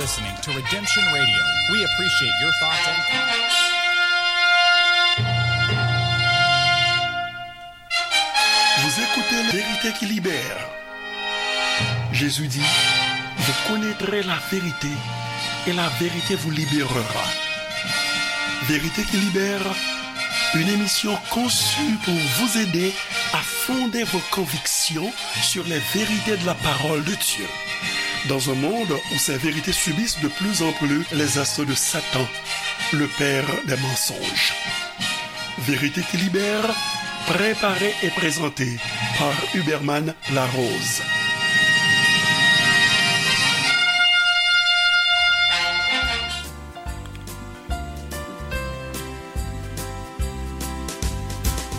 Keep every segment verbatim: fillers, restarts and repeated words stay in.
Listening to Redemption Radio. We appreciate your thoughts and comments. Vous écoutez Vérité qui libère. Jésus dit, vous connaîtrez la vérité et la vérité vous libérera. Vérité qui libère, une émission conçue pour vous aider à fonder vos convictions sur les vérités de la parole de Dieu. Dans un monde où ces vérités subissent de plus en plus les assauts de Satan, le père des mensonges. Vérité qui libère, préparée et présentée par Huberman Larose.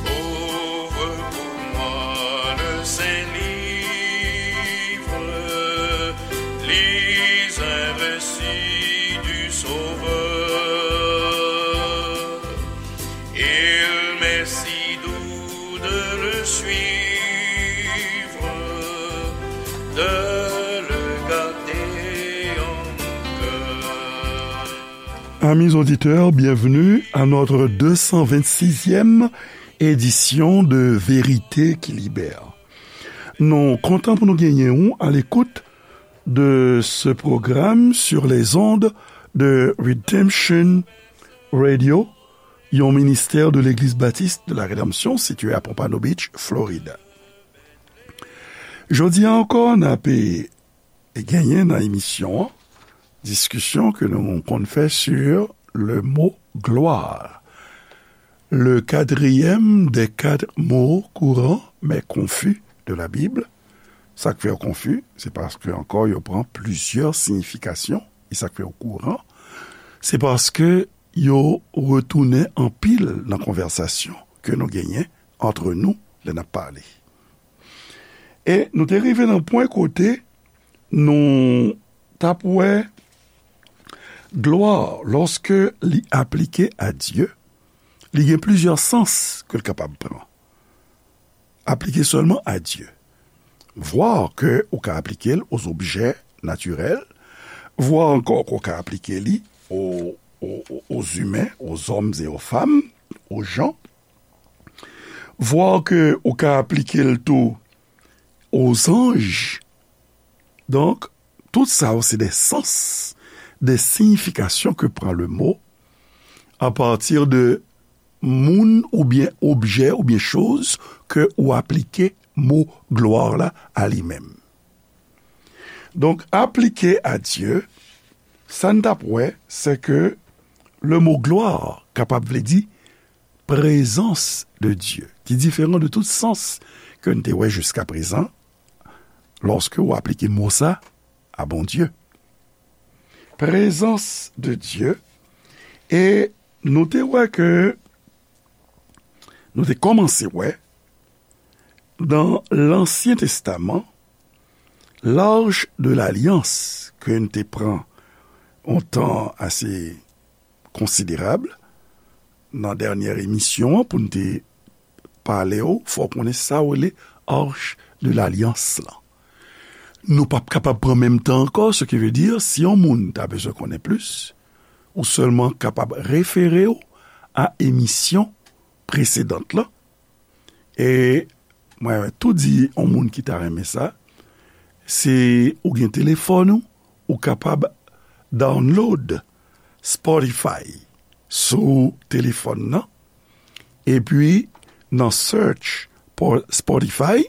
Ouvre pour moi le saint livre, lis un récit du Sauveur. Il m'est si doux de le suivre, de le garder en mon cœur. Amis auditeurs, bienvenue à notre deux cent vingt-sixième édition de Vérité qui Libère. Nou kontan pou nou genyen ou à l'écoute de ce programme sur les ondes de Redemption Radio, yon ministè de Legliz Batis de la Rédemption situé à Pompano Beach, Florida. Jodi a ankò, n ap genyen nan emisyon an diskisyon ke nou konn fè sur le mot gloire. Le quatrième des quatre mots courants mais confus de la Bible. Sa k fè yo konfi, se paske ankò yo pran plizyè siyifikasyon, e sa k fè yo kouran, se paske yo retounen anpil nan konvèsasyon ke nou genyen antre nou lè n ap pale. E nou te rive nan pwen kote nou t ap wè glwa, lòske li aplike a Dye, li gen plizyè sans ke l kapab pran. Aplike sèlman a Dye. Vwa ke ou ka aplike l aux objets naturels, vwa ankò ke ou ka aplike li aux, aux, aux humains, aux hommes et aux femmes, aux gens. Vwa ke ou ka aplike l tou aux anges. Donk, tout sa yo se de sans, de siyifikasyon ke pran le mo a pati de moun oubyen objè oubyen choz ke ou aplike mo glwa la a li menm. Donk, aplike a Dye, sa n t ap wè, se ke le mo glwa kapab vle di prezans de Dye, ki diferan de tout sans ke n te wè jiska prezan, lòske w aplike mo sa a Bondye. Prezans de Dye, e nou te wè ke, nou te kòmanse wè, nan Lansyen Testaman, L'arche de l'alliance ke n te pran yon tan ase konsiderab nan dènyè emisyon an pou n te pale w, fò w konnen sa w rele Arche de l'Alliance lan. Nou p ap kapab pran menm tan ankò, ce qui veut dire, si yon moun ta bezwen konnen plis, ou sèlman kapab refere w a emisyon presedant lan. E mwen tou di yon moun ki ta renmen sa, si ou gen telefòn ou, ou kapab download Spotify sou telefòn nan, epi nan search pou Spotify,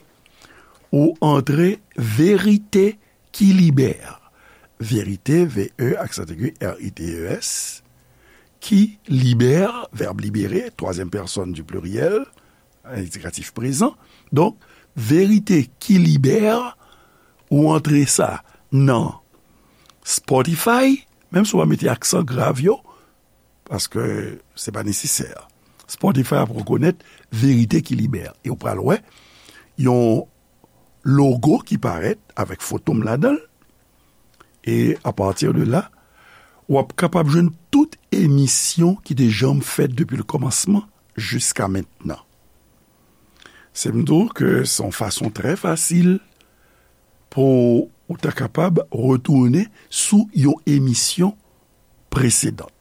ou antre Verite ki Libère. Verite, V E aksan aigu, R I T E S, ki libère, vèb libéré, troisième personne du pluriel, endikatif prezan. Donk, Verite ki Libère, ou antre sa nan Spotify, menm si w pa mete aksan grav yo, paske se pa nesesè. Spotify ap rekonèt Verite ki Libère. E w pral wè yon logo ki parèt avèk foto m ladan l. E apati de la, w ap kapab jwenn tout emisyon ki te janm fèt depi le kòmansman jiska mentnan. Se m di w ke se yon fason trè fasil pou ou ta kapab retounen sou yon emisyon presedan.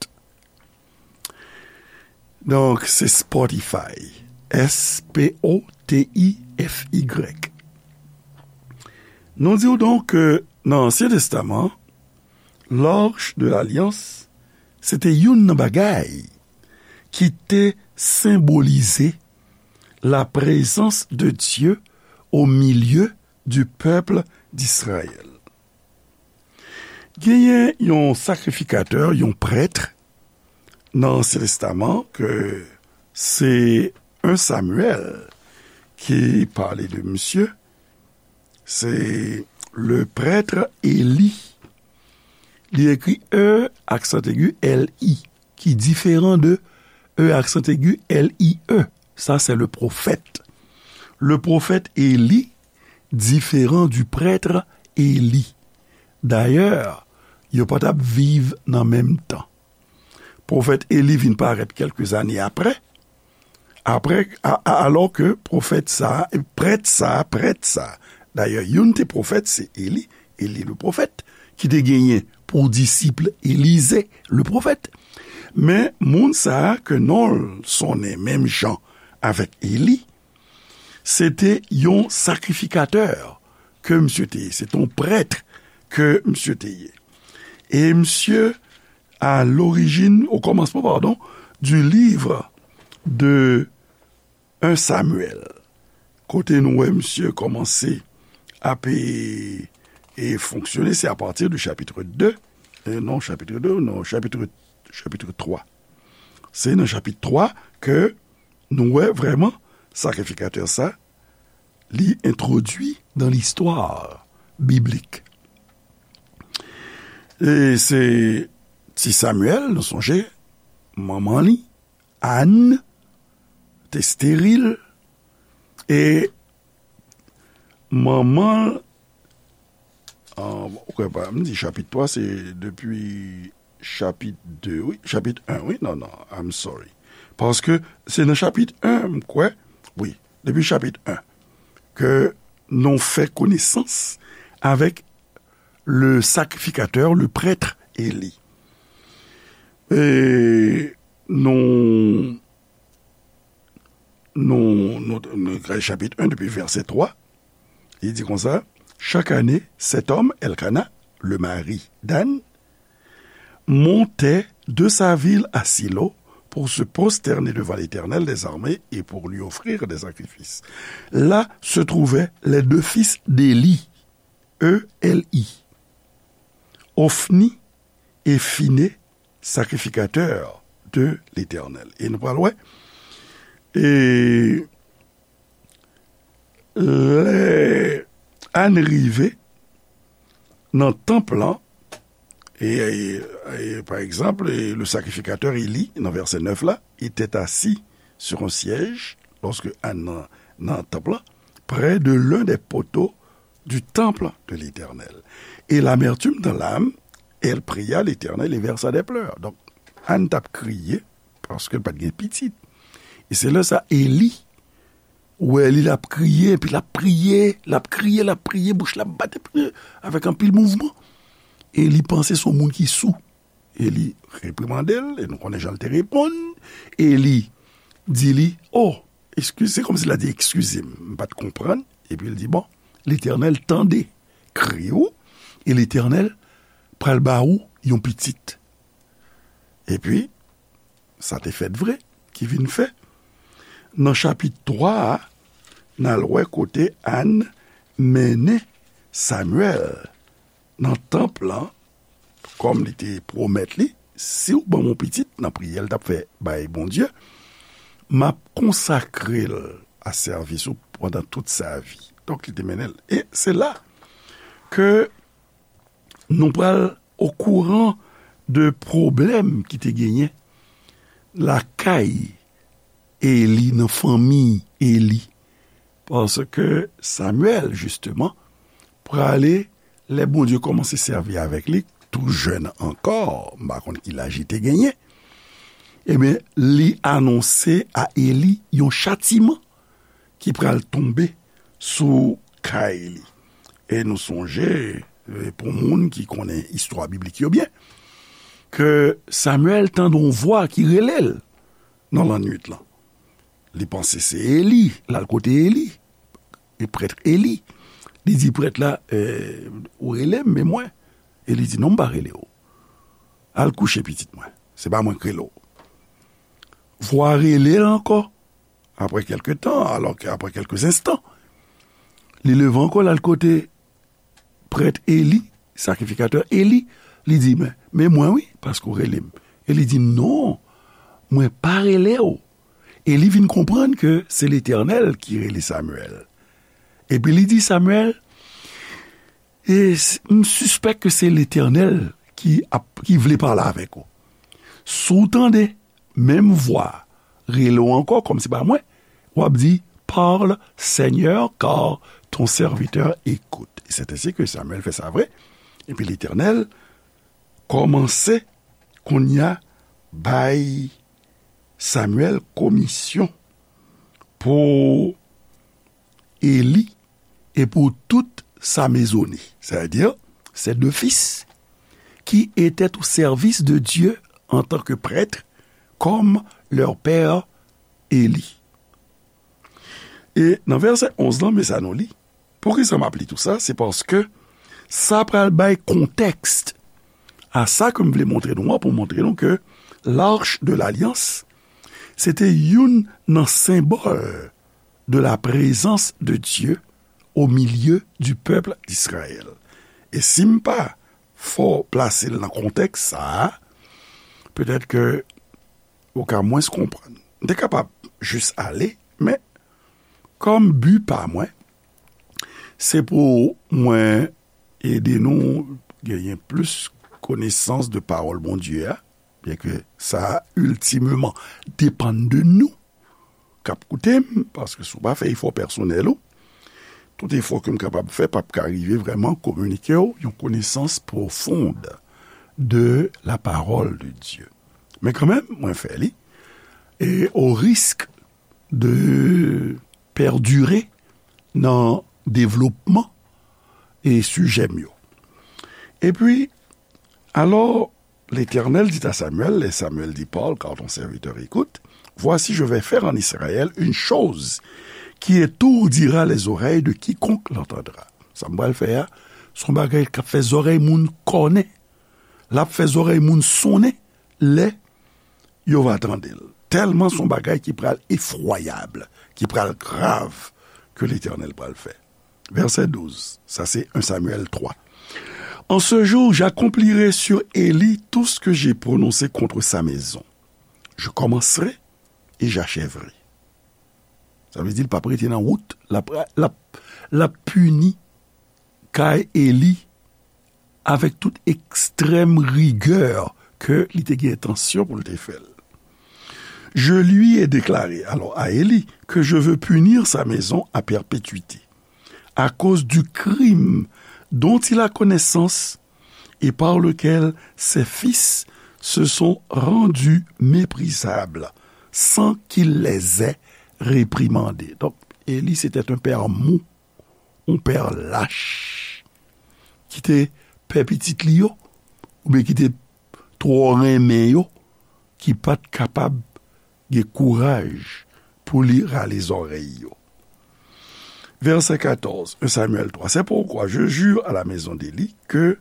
Donk, se Spotify. S P O T I F Y. Nou di w donk ke nan Ansyen Testaman, Lòch de Lalyans, se te youn nan bagay ki te senbolize la présence de Dieu au milieu du peuple d'Israël. Genyen yon sakrifikatè, yon prèt nan Ansyen Testaman ke se en Samuel ki pale de misye, se le prêtre Élie. Li ekri E aksan egi L I, ki diferan de E aksan egi L I E. Sa se le prophète. Le prophète Élie différent du prêtre Élie. Dayè, yo pa t ap viv nan menm tan. Pwofèt Eli vin parèt kèlke zane apre, apre, a, a, alò ke pwofèt sa, prèt sa, prèt sa. Dayè, youn te pwofèt, se Eli, Eli le pwofèt, ki te genyen pou disip Elize le pwofèt. Men, moun sa a ke non l sonnen menm jan avèk Eli, se te yon sakrifikatè ke misye te ye. Se te yon prèt ke misye te ye. E misye, à l'origine, au commencement, pardon, du livre de un Samuel, kote nou wè misye kòmanse ap, e, e fonksyone, se apati de chapitre de, e non, chapitre de, non, chapitre, chapitre twa. Se nan chapit twa ke nou wè vrèman sakrifikatè sa, li entwodui dan listwa biblik. E se ti Samuel, nou sonje, manman li, Ann, te esteril, e manman l, ah, ou kwè pa, m di chapit twa, se depi chapit de, wi, chapit en, wi, non, non, I'm sorry. Paske se nan chapit en, m kwè, wi, depi chapit en, ke nou fè konesans avèk le sacrificateur, le prêtre Élie. E nou, nou, nou, nou, chapit en, depi vèsè twa, li di konsa, chaque année, cet homme, Elkana, le mari d'Anne, montait de sa ville à Silo pour se prosterner devant l'Éternel des armées et pour lui offrir des sacrifices. Là se trouvaient les deux fils d'Élie, E L I, Ofni e Fine, sacrificateurs de l'Éternel. E nou pral wè, e lè Ann rive nan tanp lan, e, e, e, pa egzanp, e, le sacrificateur Élie, nan vèsè nèf la, était assis sur un siège, lorsque Anne nan, nan tanp lan, près de l'un des poteaux du temple de l'Éternel. Et l'amertume dans l'âme, elle pria l'Éternel et versa des pleurs. Donk, Ann t ap kriye, paske l pa t gen pitit. E se lè sa, Eli wè li, l ap kriye, epi l ap priye, l ap kriye, l ap priye, bouch la ap bat, epi avèk anpil mouvman. E li panse se yon moun ki sou. E li reprimande l, e nou konnen jan l te reponn. E li di li, "O, eskize," se kòmsi l a di, "Eskize m, m pa t konprann." Epi l di, "Bon, Letènèl tande kri w, e Letènèl pral ba ou yon pitit." Epi, sa te fèt vre, ki vin fè. Nan chapit twa a, n al wè kote Ann mennen Samyèl nan tanp lan, kòm li te pwomèt li, "Si w ban m yon pitit," nan priyè l t ap fè bay Bondye, "m ap konsakre l a sèvis ou pandan tout sa vi." Donk, li te mennen l. E se la ke nou pral okouran de pwoblèm ki te genyen lakay Eli, nan fanmi Eli. Paske Samyèl, jisteman, prale, lè Bondye kòmanse sèvi avèk li, tou jèn ankò, m pa konn ki laj li te genyen, ebyen, li anonse a Eli yon chatiman ki pral tonbe sou kay li. E nou sonje, e, pou moun ki konnen istwa biblik yo byen, ke Samyèl tande yon vwa ki rele l nan lannwit lan. Li panse se Eli, l al kote Eli, e prèt Eli. Li di prèt la, e, "Ou rele m, men mwen." Eli di, "Non, m pa rele w. Al kouche pitit mwen. Se pa mwen k rele w." Vwa rele l ankò, apre kèlke tan, alò ke apre kèlke enstan, li leve ankò, l al kote prèt Eli, sakrifikatè Eli, li di, "Men, men mwen wi, paske w rele m." Eli di, "Non, mwen pa rele w." Eli vin konprann ke se Letènèl ki rele Samyèl. Epi li di Samyèl, "E s-, m sispèk ke se Letènèl ki ap, ki vle pale avèk ou. Si w tande menm vwa rele w ankò, kòm se pa mwen, w ap di, 'Parle, Seigneur, car ton serviteur écoute.'" E c'est ainsi que Samuel fait sa vre. Epi Letènèl kòmanse kounye a bay Samyèl komisyon pou Eli e pour toute sa maisonnée, c'est-à-dire ses deux fils, qui étaient au service de Dieu en tant que prêtres, comme leur père Élie. E nan vèsè onz lan, men sa nou li. Poukisa m ap li tou sa? Se paske sa pral bay kontèks a sa ke m vle montre nou an, pou montre nou ke l'Arche de l'Alliance, se te youn nan senbòl de la présence de Dieu au milieu du peuple d'Israël. E si m pa fè w plase l nan kontèks sa a, petèt ke ou ka mwens konprann. M te kapab jis ale, men kòm bi pa mwen, se pou mwen ede nou genyen plis konesans de pawòl Bondye a, byen ke sa a iltimeman depann de nou k ap koute m, paske si w pa fè efò pèsonèl ou, tout efò ke m kapab fè p ap ka rive vrèman kominike w yon konesans pwofond de la parole de Dieu. Men kanmenm, mwen fè li, e o risk de pèdire nan devlopman e sijè m yo. Epi, alors, l'Éternel dit à Samuel, et Samuel dit, Parle, car ton serviteur écoute. Voici, je vais faire en Israël une chose qui étourdira les oreilles de quiconque l'entendra. Sa m pral fè a, se yon bagay k ap fè zòrèy moun kònen. L ap fè zòrèy moun sonnen lè yo va tande l. Tèlman se yon bagay ki pral efwayab, ki pral grav ke Letènèl pral fè. Vèsè douz, sa se un Samuel trois. En ce jour, j'accomplirai sur Élie tout ce que j'ai prononcé contre sa maison. Je commencerai et j'achèverai. Sa vle di l p ap rete nan wout, l ap, l ap, l ap pini kay Eli avèk tout ekstrèm rigè ke li te gen entansyon pou l te fè l. Je lui ai déclaré, alors à Élie, que je veux punir sa maison à perpétuité, à cause du crime dont il a connaissance et par lequel ses fils se sont rendus méprisables sans qu'il les ait réprimandés. Donk, Eli se te yon pè mou, yon pè lach, ki te pè pitit li yo, oubyen ki te twò renmen yo, ki pa t kapab gen kouraj pou li rale zòrèy yo. Verset quatorze, un Samuel trois. C'est pourquoi je jure à la maison d'Élie que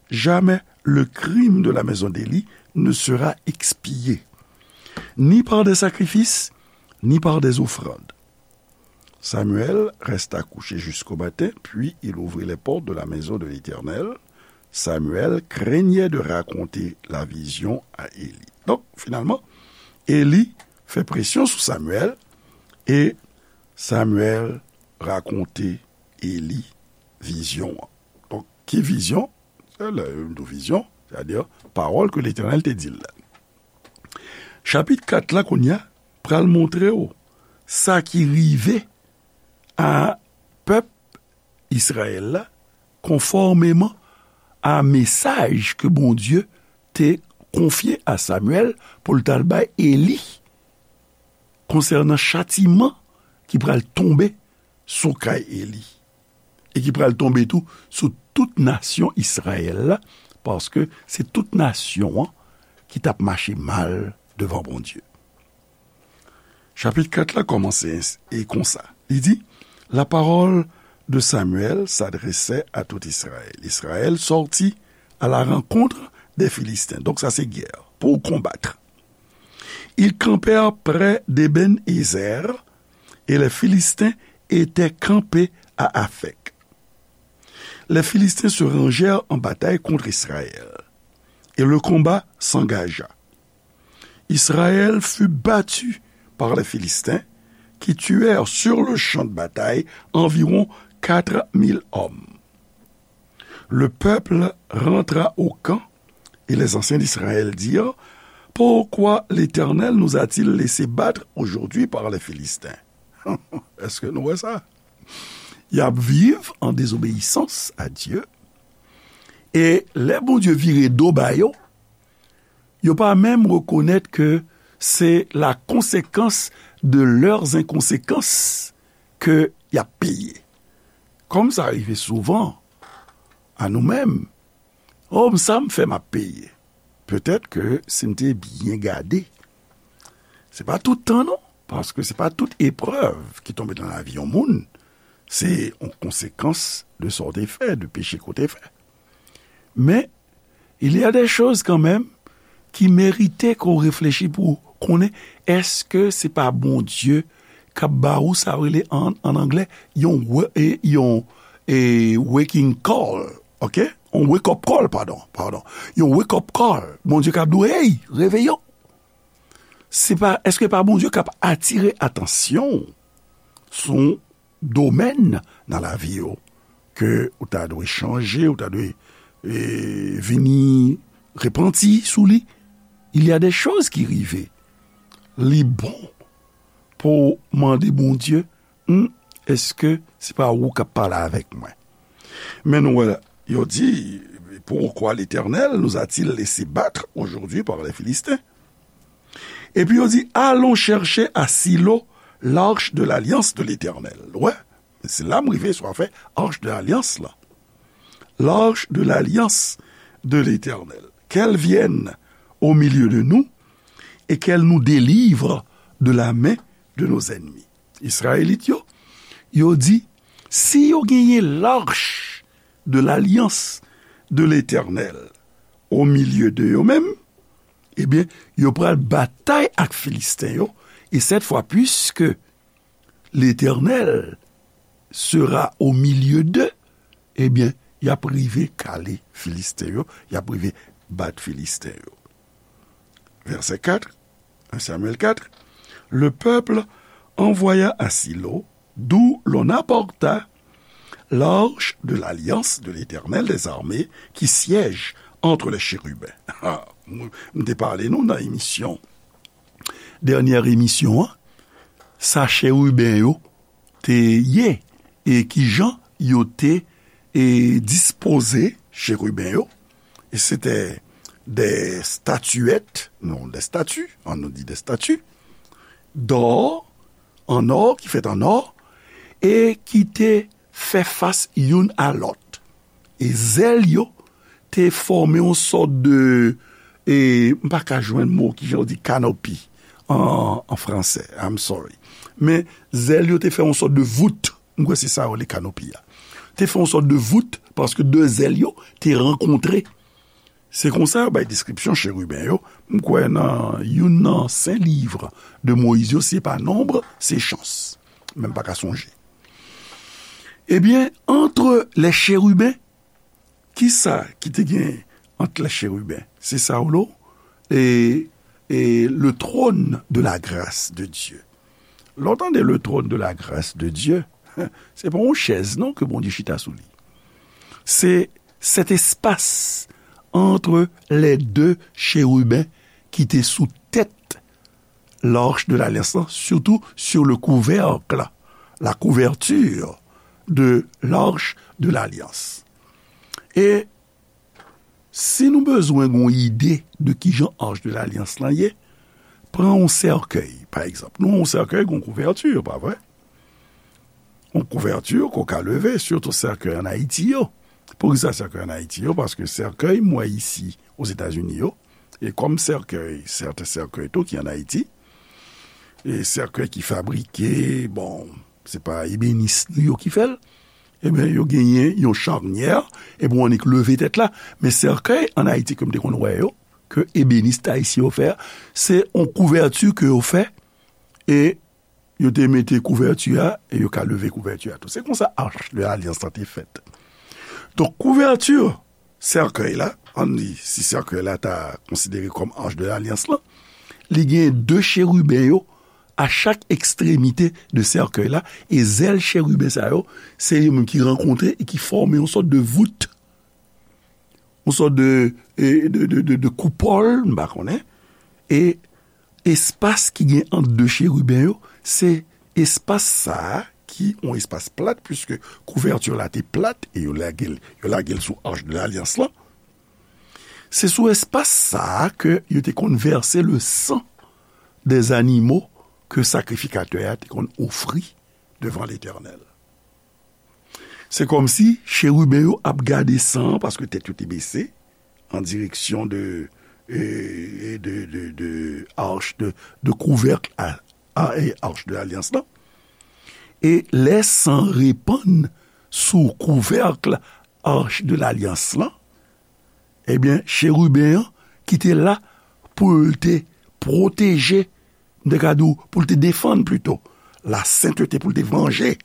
jamais le crime de la maison d'Élie ne sera expié, ni par des sacrifices, ni par des offrandes. Samuel resta couché jusqu'au matin, puis il ouvrit les portes de la maison de l'Éternel. Samuel craignait de raconter la vision à Élie. Donk, finalman, Eli fè presyon sou Samuel e Samuel rakonte Eli vizyon an. Donk, ki vizyon? Se lè yo di vizyon, sètadi pawòl ke Letènèl te di l la. Chapit kat la, kounye a, pral montre w sa ki rive a pèp Izrayèl la, konfòmeman a mesaj ke Bondye te konfye a Samyèl pou l t al bay Eli konsènan chatiman ki pral tonbe sou kay Eli e ki pral tonbe tou sou tout nasyon Izrayèl la, paske se tout nasyon an ki t ap mache mal devan Bondye. Chapit kat la kòmanse ens-, e konsa. Li di, La parole de Samuel s'adressait à tout Israël. Israël sortit à la rencontre des Philistins. Donk sa se gè pou konbat. Ils campèrent près d'Ébén-Ézer et les Philistins étaient campés à Aphek. Les Philistins se rangèrent en bataille contre Israël et le combat s'engagea. Israël fut battu par les Philistins, qui tuèrent sur le champ de bataille environ quatre mille hommes. Le peuple rentra au camp et les anciens d'Israël dirent, Pourquoi l'Éternel nous a-t-il laissé battre aujourd'hui par les Philistins? Èske nou wè sa? Y ap viv an dezobeyisans a Dye. E lè Bondye vire do ba yo, yo pa menm rekonèt ke se la konsekans de leurs inconséquences ke y ap peye. Kòm sa rive souvan a nou menm, oh, sa m fè m ap peye. Petèt ke si n te byen gade, se pa tout tan non, paske se pa tout eprèv ki tonbe nan lavi yon moun, se yon konsekans de sa w te fè, de peche ke w te fè. Men, il y a des choses quand même ki merite ke w reflechi pou w konnen èske se pa Bondye k ap ba ou sa yo rele an, an anglè, yon, wa- e, yon e, waking call, ok? Yon wake up call, padon, padon. Yon wake up call. Bondye k ap di w, hey, reveye w. Se pa, èske pa Bondye k ap atire atansyon w sou domèn nan lavi w ke ou ta dwe chanje, ou ta dwe e, vini repanti sou li? Il y a des choses ki rive. Li bon pou w mande Bondye, hmm, èske se pa ou k ap pale avèk mwen? Men nou wè, yo di, Pourquoi l'Éternel nous a-t-il laissé battre aujourd'hui par les Philistins? Epi yo di, Allons chercher à Silo l'arche de l'alliance de l'Éternel. Wè, se la m rive sou afè arche de l'alliance la. L'arche de l'alliance de l'Éternel. Qu'elle vienne au milieu de nous et qu'elle nous délivre de la main de nos ennemis. Izrayelit yo, yo di, si yo genyen l'arche de l'alliance de l'Éternel au milieu de yo menm, ebyen, yo pral batay ak Filisten yo, e cette fois, puisque l'Éternel sera au milieu d'eux, ebyen, y ap rive kale Filisten yo, y ap rive bat Filisten yo. Verset quatre, un Samuel quatre, Le peuple envoya à Silo, d'où l'on apporta l'arche de l'alliance de l'Éternel des armées qui siège entre les chérubins. Ah, m m te pale nou nan emisyon, dènyè emisyon an, sa cheriben yo te ye, e kijan yo te e, dispoze cheriben yo. E se te de statiyèt, non, de stati, an nou di de stati, d'or, an or, ki fèt an or, e ki te fè fas youn a lòt. E zèl yo te fòme yon sòt de, e, m pa ka jwenn mo, kijan yo di canopy an, an fransè, I'm sorry. Men zèl yo te fè yon sòt de vout, m kwè se sa yo rele canopy a. Te fè yon sòt de vout, paske de zèl yo te rankontre. Se konsa yo bay deskripsyon cheriben yo, m kwè nan youn nan sen liv de Moyiz yo, si se pa Nonb, se Chans. Men m pa ka sonje. Ebyen, entre les chérubins, kisa ki te gen entre les chérubins? Se sa w lo, e, e le trône de la grâce de Dieu. Lè w tande le trône de la grâce de Dieu, se pa yon chèz non ke Bondye chita sou li. Se cet espace entre les deux chérubins ki te sou tèt l'arche de l'alliance, surtout sur le couvercle, la couverture de l'arche de l'alliance. E si nou bezwen gon ide de kijan arche de l'alliance lan ye, pran yon sèkèy, pa egzanp. Nou, yon sèkèy gon kouvèti, pa vre? Yon kouvèti ke w ka leve, sitou sèkèy an Ayiti yo. Poukisa sèkèy ann Ayiti yo? Paske sèkèy m wè isi Ozetazini yo, e kòm sèkèy, sèten sèkèy tou ki ann Ayiti, e sèkèy ki fabrike, bon, se pa ebenis nou yo ki fè l, ebyen, yo genyen yon chanyè, epi w annik leve tèt la. Men sèkèy ann Ayiti ke m te konn wè yo, ke ebenis ayisyen yo fè a, se yon kouvèti ke yo fè, e yo te mete kouvèti a, e yo ka leve kouvèti a tou. Se konsa Arche de l'Alliance lan te fèt. Donk, kouvèti sèkèy la, ann di, si sèkèy la ta konsidere kòm Arche de l'Alliance lan, li gen de cheriben yo a chak ekstremite de sèkèy la, e zèl cheriben sa yo, se yo menm ki rankontre e ki fòme yon sòt de vout, yon sòt de, e, de, de, de, de koupòl, m pa konnen, e espas ki gen ant de cheriben yo, se espas sa a ki yon espas plat, piske kouvèti la te plat, e yo lage l, yo lage l sou Arche de l'Alliance lan. Se sou espas sa a ke yo te konn vèse le san dè zanimo ke sakrifikatè a te konn ofri devan Letènèl. Se kòmsi cheriben yo ap gade san an, paske tèt yo te bese, an direksyon de, e, e de, de, de arch de, de kouvèk a, a, e arch de lalyans lan. E lè san repann sou kouvèk arch de lalyans lan, ebyen, cheriben an ki te la pou l te pwoteje, m te ka di w, pou l te defann plito, la sentete, pou l te vanje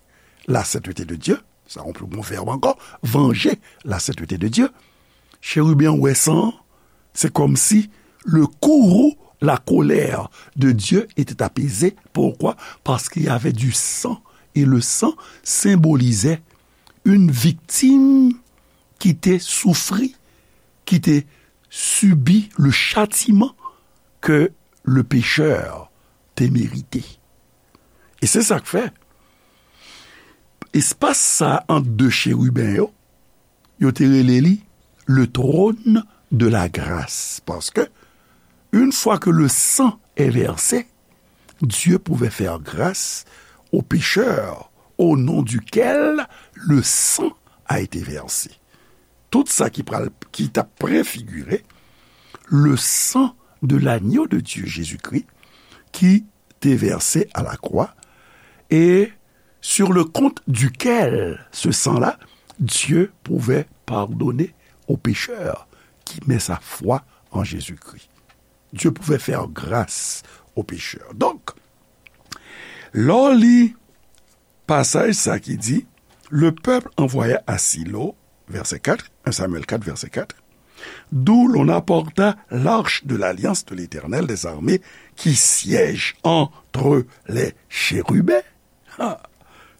la sentete de Dye, sa yon pli bon vèb ankò, vanje la sentete de Dye. Cheriben an wè san an, c'est comme si le courroux, la colère de Dieu était apaisé. Pourquoi? Parce qu'il y avait du sang. Et le sang symbolisait une victime ki te soufri, ki te sibi le châtiment que le pécheur te merite. E se sa k fè, espas sa ant de cheriben yo, yo te rele li le trône de la grâce. Paske, une fois que le sang est versé, Dieu pouvait faire grâce au pécheur au nom duquel le sang a été versé. Tout sa ki pral, ki t ap prefigire le sang de l'agneau de Dieu, Jésus-Christ, ki te vèse a la kwa, et sur le compte duquel ce sang-là, Dieu pouvait pardonner au pécheur qui met sa foi en Jésus-Christ. Dieu pouvait faire grâce au pécheur. Donk, lè w li pasaj sa ki di, le peuple envoya à Silo, verset quatre, un Samuel quatre, verset quatre, d'où l'on apporta l'arche de l'alliance de l'Éternel des armées qui siège entre les chérubins. Ah,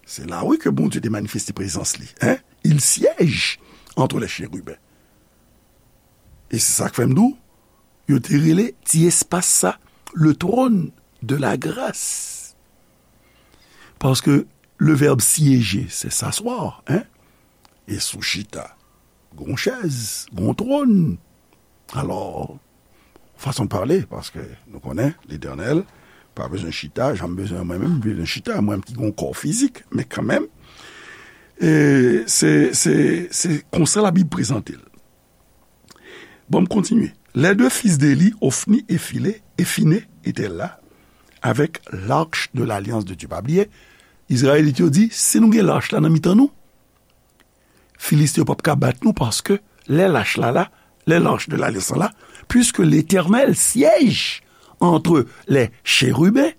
se la, wi, ke Bondye te manifeste prezans li. Hein? Il siège entre les chérubins. E se sa k fè m di w, yo te rele ti espas sa le trône de la grâce. Paske le vèb siéger, se s'asseoir, hein? E sou chita, gon chèz, gon twòn. Alò, fason de pale, paske nou konnen, Letènèl pa bezwen chita, jan m bezwen mwen menm, m bezwen chita, mwen menm ki gon kò fizik, men kanmenm, e se, se, se konsa Labib prezante l. Bon, m kontinye. Les deux fils d'Éli, Hophni et Philé, et Phiné, étaient là avec l'arche de l'alliance de Dieu. Pa bliye, Izrayelit yo di, si nou gen lach la nan mitan nou, Filiste yo p ap ka bat nou, paske lè lach la la, lè l'arche de l'alliance la, puisque l'Éternel siège entre les chérubins,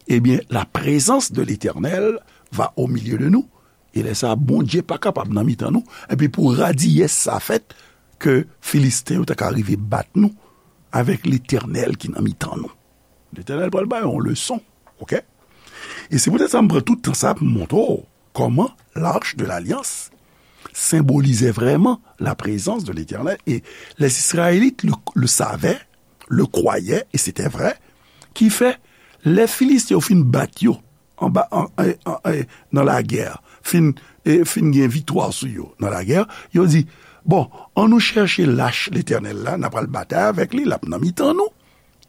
eh bien, la présence de l'Éternel va au milieu de nous. E lè sa a, Bondye pa kapab nan mitan nou. Epi pou radiyès sa fèt, ke Filisten yo ta ka rive bat nou avèk Letènèl ki nan mitan nou. Letènèl pral ba yo yon leson, oke? E se poutèt sa m pran tout tan sa pou m montre w kòman l'arche de l'alliance senbolizè vrèman la présence de l'Éternel. E les Israélites le, le savaient, le croyaient, et c'était vrai, ki fè, lè Filisten yo fin bat yo, anba, an, an, an, an, nan lagè, fin, e, fin gen viktwa sou yo nan lagè, yo di, bon, ann nou chèche lach Letènèl la, n a pral batay avèk li, l ap nan mitan nou.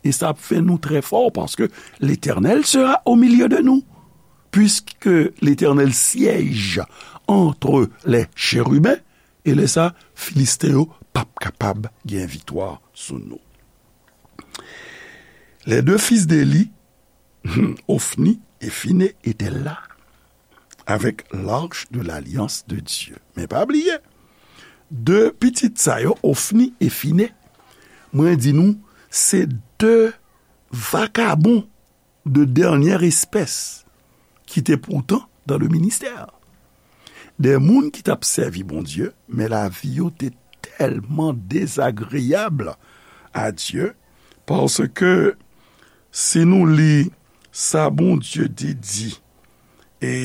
E sa ap fè nou trè fò, paske Letènèl sera au milieu de nous. Puisque l'Éternel siège entre les chérubins, E lè sa, Filisten yo p ap kapab gen viktwa sou nou. Les deux fils d'Éli, Ophni et Phiné étaient là avec l'arche de l'alliance de Dieu. Men pa bliye, de pitit sa yo, Ophni e Phiné, mwen di nou, se de vakabon de dènyè espès ki te poutan dans le ministère. De moun ki t ap sèvi Bondye, men lavi yo te tèlman dezagreyab a Dye, paske si nou li sa Bondye te di, e,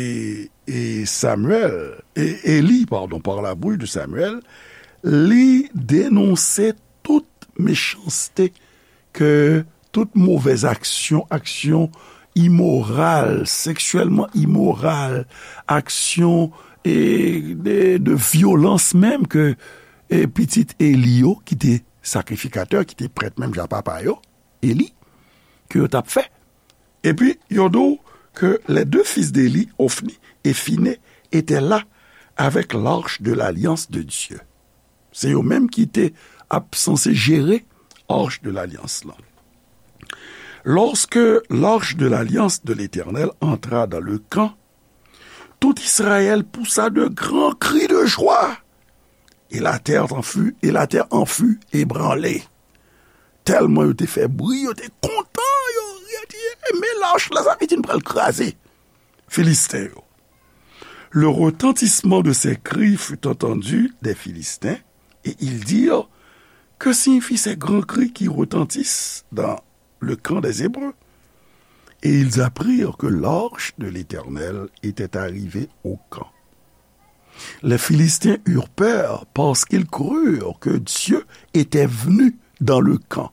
e Samuel, e Eli, padon, par la bouche de Samuel, li denonse tout mechanste ke tout movèz aksyon, aksyon imoral, seksyèlman imoral, aksyon, e, de, de vyolans menm ke, e, pitit Eli yo, ki te sakrifikatè, ki te prèt menm jan papa yo, Eli, ke yo t ap fè. Epi, yo di w ke les deux fils d'Éli, Ophni et Phiné, étaient là avec l'arche de l'alliance de Dieu. Se yo menm ki te ap sanse jere arche de l'alliance lan. Lorsque l'arche de l'alliance de l'Éternel entra dans le camp, tout Israël poussa de grands cris de joie, et la terre en fut, et la terre en fut ébranlée. Tèlman yo te fè bri, yo te kontan, yo ri, yo di, "E, men lach la, sa vle di n pral kraze Filisten yo." Le retentissement de ces cris fut entendu des Philistins, et ils dirent, Que signifient ces grands cris qui retentissent dans le camp des Hébreux? Et ils apprirent que l'arche de l'Éternel était arrivée au camp. Les Philistins eurent peur parce qu'ils crurent que Dieu était venu dans le camp.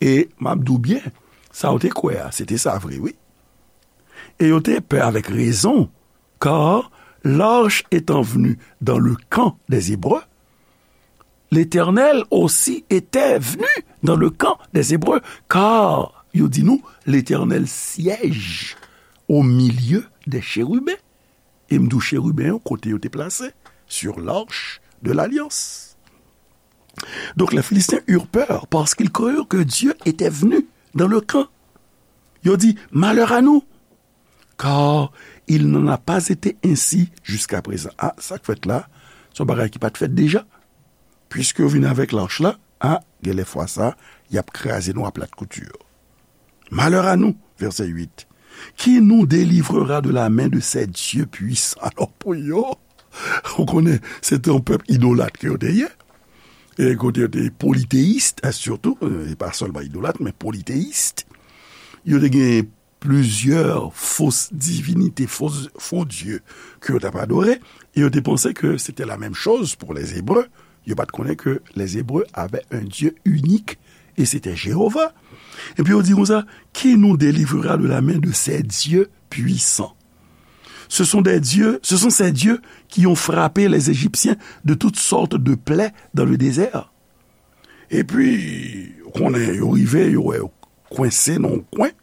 E m ap di w byen, sa yo te kwè a, se te sa vre, wi. Et yo te pè avec raison, car l'arche étant venue dans le camp des Hébreux, l'Éternel aussi était venu dans le camp des Hébreux, car, yo di nou, l'Éternel siège au milieu des chérubins. E m di w cheriben yo, kote yo te plase, sur l'arche de l'alliance. Donc les Philistins eurent peur parce qu'ils crurent que Dieu était venu dans le camp. Yo di, "Malheur à nous, car il n'en a pas été ainsi jusqu'à présent." A, sa k fèt la, se yon bagay ki pa t fèt deja. Piske yo vin avèk lach la, a, genlè fwa sa, y ap kraze nou a plat kouti. Malheur à nous, verset huit, qui nous délivrera de la main de ces dieux puissants? Alò, pou yo, ou konnen, se te yon pèp idolat ke yo te ye. E kote yo te politeyis, e sitou, e pa sèlman idolat, men politeyis. Yo te gen plizyè fo divinite, fo, fo dye ke yo t ap adore, e yo te panse ke se te la menm choz pou les Hébreux. Yo pa t konnen ke les Hébreux avaient un Dieu unique, et c'était Jéhovah. Epi yo di konsa, qui nous délivrera de la main de ces dieux puissants? Ce sont des dieux, ce sont ces dieux qui ont frappé les Égyptiens de toutes sortes de plaies dans le désert. Epi, ou konnen, yo rive, yo wè yo kwense nan yon kwen.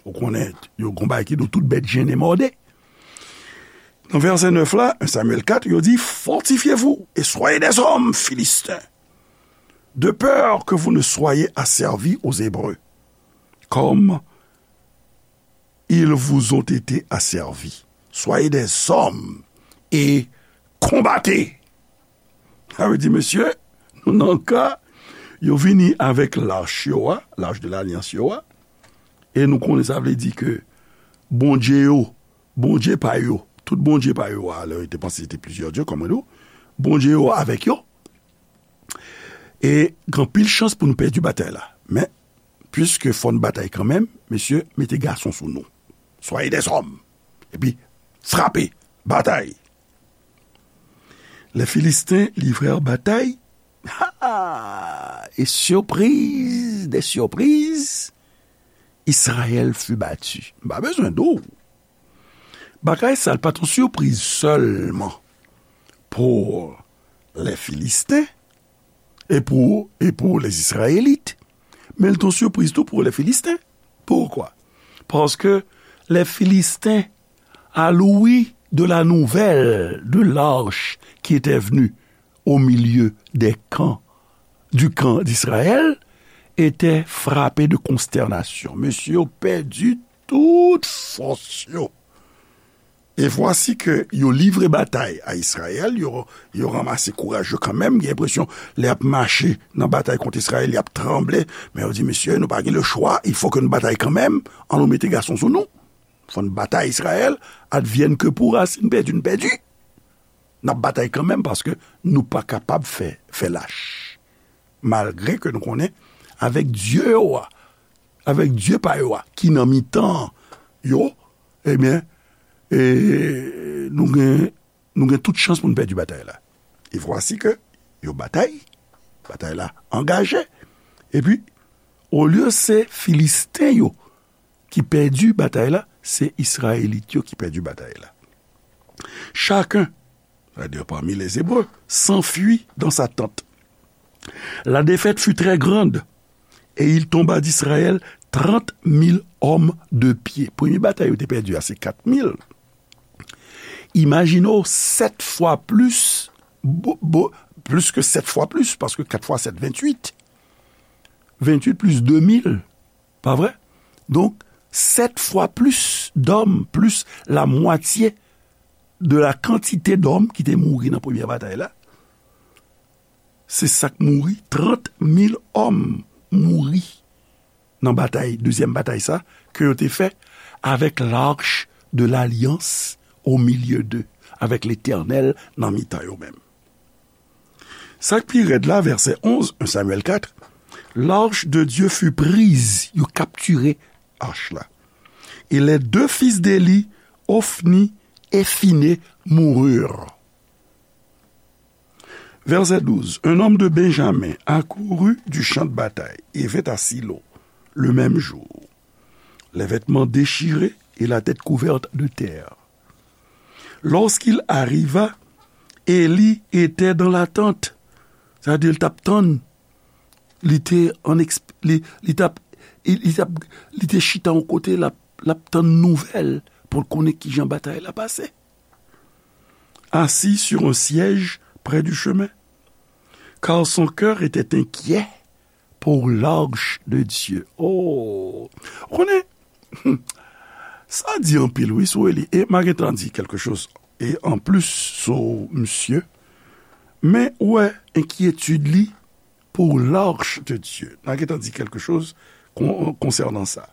Ou konnen, yo gon bagay ki di w tout bèt jennen mòde. Nan vèsè nèf la, un Samuel quatre, yo di, Fortifiez-vous et soyez des hommes, Philistins, de peur que vous ne soyez asservis aux Hébreux, comme ils vous ont été asservis. Soyez des hommes et combattez. Sa vle di, mesye, nou nan ka, yo vini avèk lach yo a, lach de lalyans yo a, e nou konnen sa vle di ke Bondye yo, Bondye pa yo, tout Bondye pa yo a, lè yo te panse se te plizyè dye, kòm mwen di w, Bondye yo avèk yo, e gen anpil chans pou nou pèdi batay la. Men, piske fò n batay kanmenm, mesye, mete gason sou nou. Soyez des hommes. Epi, frape, batay. Les Philistins livrèrent bataille. Ha! Et surprise des surprises, Israël fut battu. M pa bezwen di w. Bagay sa l pa t yon sipriz sèlman pou les Philistins e pou, e pou les Israélites, men l t yon sipriz tou pou les Philistins. Pourquoi? Paske les Philistins, à l'ouïe de la nouvelle de l'arche qui était venue au milieu des camps, du camp d'Israël, étaient frappés de consternation. Mesye yo pèdi tout fòs yo. Et voici que yo livre batay a Izrayèl, yo, yo ranmase kouraj yo kanmenm, gen enpresyon lè y ap mache nan batay kont Izrayèl, y ap tranble, men yo di, mesye, nou pa gen le choix, il faut que nou batay kanmenm, ann nou mete gason sou nou. Fò n batay Izrayèl, advienne que pourra, si n pèdi, n pèdi. N ap batay kanmenm paske nou pa kapab fè, fè lach. Malgre ke nou konnen, avèk Dye yo a, avèk Dye pa yo a, ki nan mitan yo, ebyen, e, nou gen, nou gen tout chans pou n pèdi batay la. E vwasi ke yo batay, batay la angaje. Epi, olye se Filisten yo ki pèdi batay la, se Izrayelit yo ki pèdi batay la. Chacun, c'est-à-dire parmi les Hébreux, s'enfuit dans sa tente. La défaite fut très grande, et il tomba d'Israël trente mille hommes de pied. Premye batay yo te pèdi a, se kat mil. Imajine w, sèt fwa plis, bo- bo- plus que sept fois plus, paske kat fwa sèt, venntuit. Venntuit plis de mil, pa vre? Donk, sèt fwa plis dòm, plis la mwatye de la kantite dòm ki te mouri nan premyè batay la. Se sa k mouri, trant mil òm mouri nan batay, dezyèm batay sa, ke yo te fè avec l'arche de l'alliance au milieu d'eux, avec Letènèl nan mitan yo menm. Sa k pi rèd la, vèsè onz, un Samuel quatre, l'arche de Dieu fut prise, yo kaptire ach la. Et les deux fils d'Éli, Ophni et Phiné, moururent. Verset douze, un homme de Benjamin accourut du champ de bataille et vint à Silo le même jour, les vêtements déchirés et la tête couverte de terre. Lorsqu'il arriva, Éli était dans la tente. Sa vle di, l t ap tann. Li te an eksp-, li, li t ap, li, li t ap, li te chita yon kote, l ap, l ap tann nouvèl pou l konnen kijan batay la pase. Assis sur un siège près du chemin, car son cœur était inquiet pour l'arche de Dieu. Oh! Ou konnen, sa di anpil, wi, sou Eli. E m a gentan di quelque chose, e an plis sou misye. Men, ou wè, enkyetid li pour l'arche de Dieu. N a gentan di quelque chose con-, concernant ça.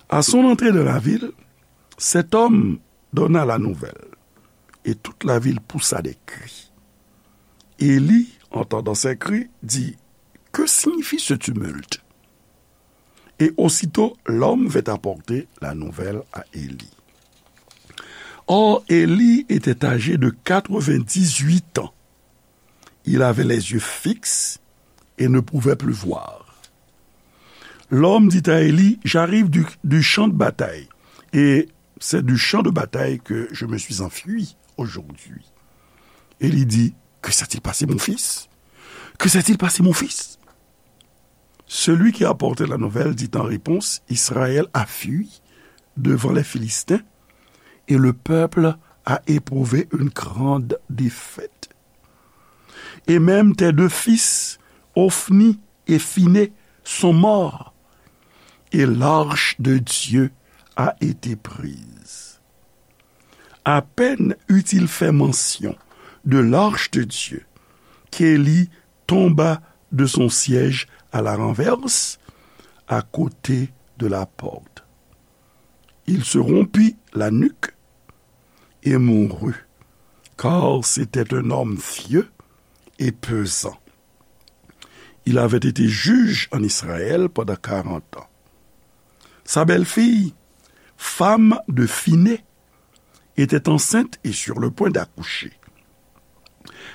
À son entrée dans la ville, cet homme donna la nouvelle, et toute la ville poussa des cris. Élie, entendant ces cris, dit, que signifie ce tumulte? Et aussitôt, l'homme vint apporter la nouvelle à Élie. Or, Élie était âgé de quatre-vingt-dix-huit ans. Il avait les yeux fixes et ne pouvait plus voir. L'homme dit à Élie, j'arrive du, du champ de bataille, et c'est du champ de bataille que je me suis enfui aujourd'hui. Élie dit, que s'est-il passé, mon fils? Que s'est-il passé, mon fils? Celui qui apportait la nouvelle dit en réponse, Israël a fui devant les Philistins, et le peuple a éprouvé une grande défaite. Et même tes deux fils, Ophni et Phiné, sont morts, et l'arche de Dieu a été prise. À peine eut-il fait mention de l'arche de Dieu, qu'Élie tomba de son siège à la renverse, à côté de la porte. Il se rompit la nuque et mourut, car c'était un homme vieux et pesant. Il avait été juge en Israël pendant quarante ans. Sa belle-fille, femme de Phiné, était enceinte et sur le point d'accoucher.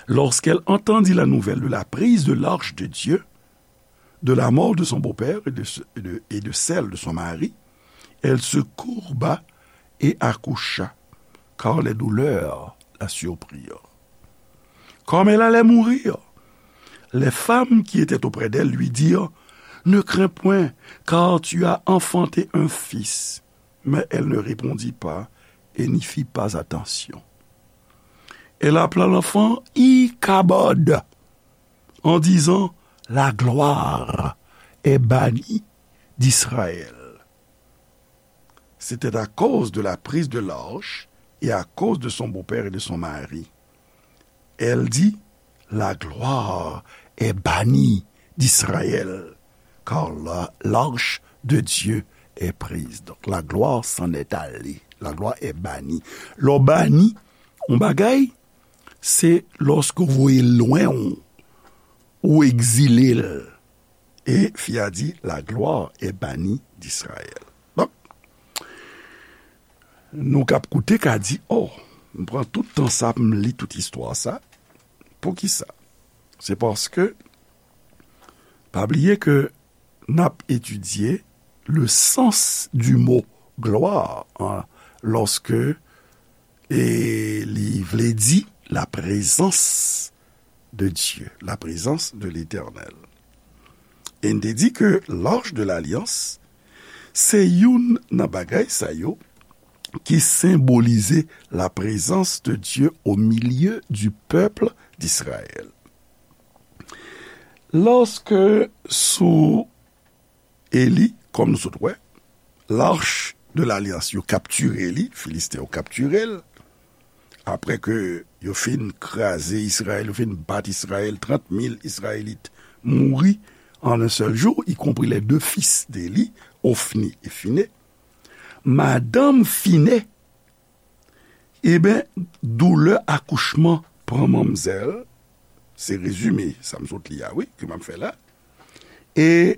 Lorsqu'elle entendit la nouvelle de la prise de l'arche de Dieu, de la mort de son beau-père et de, et de, et de celle de son mari, elle se courba et accoucha, car les douleurs la surprirent. Comme elle allait mourir, les femmes qui étaient auprès d'elle lui dirent, ne crains point, car tu as enfanté un fils. Mais elle ne répondit pas et n'y fit pas attention. Elle appela l'enfant Ichabod. Kabod, en disant, la gloire est bannie d'Israël. C'était à cause de la prise de l'arche et à cause de son beau-père et de son mari. Elle dit, la gloire est bannie d'Israël, car la, l'arche de Dieu est prise. Donc, la gloire s'en est allée. La gloire est bannie. Lè w bani yon bagay, se lòske w voye l lwen w, ou egzile l. E fi a di, la gloire est bannie d'Israël. Donk, nou k ap koute ka di, oh, m pran tout tan sa pou m li tout istwa sa. Poukisa? Se paske, pa bliye ke n ap etidye le sens du mot gloire, hein, lòske, e li vle di la présence de Dieu, la présence de l'Éternel. E n te di ke l'arche de l'alliance, se youn nan bagay sa yo ki senbolize la présence de Dieu au milieu du peuple d'Israël. Lòske sou Eli, kòm nou sot wè, l'arche de l'alliance, yo kaptire li, Filisten yo kaptire l. Apre ke yo fin kraze Izrayèl, yo fin bat Izrayèl, trant mil Izrayelit mouri en un seul jour, y compris les deux fils d'Éli, Hophni et Phineus. Madanm Phineus, eben, doulè akouchman pran manmzèl, se rezime sa m sot li a, wi, ke m ap fè la. E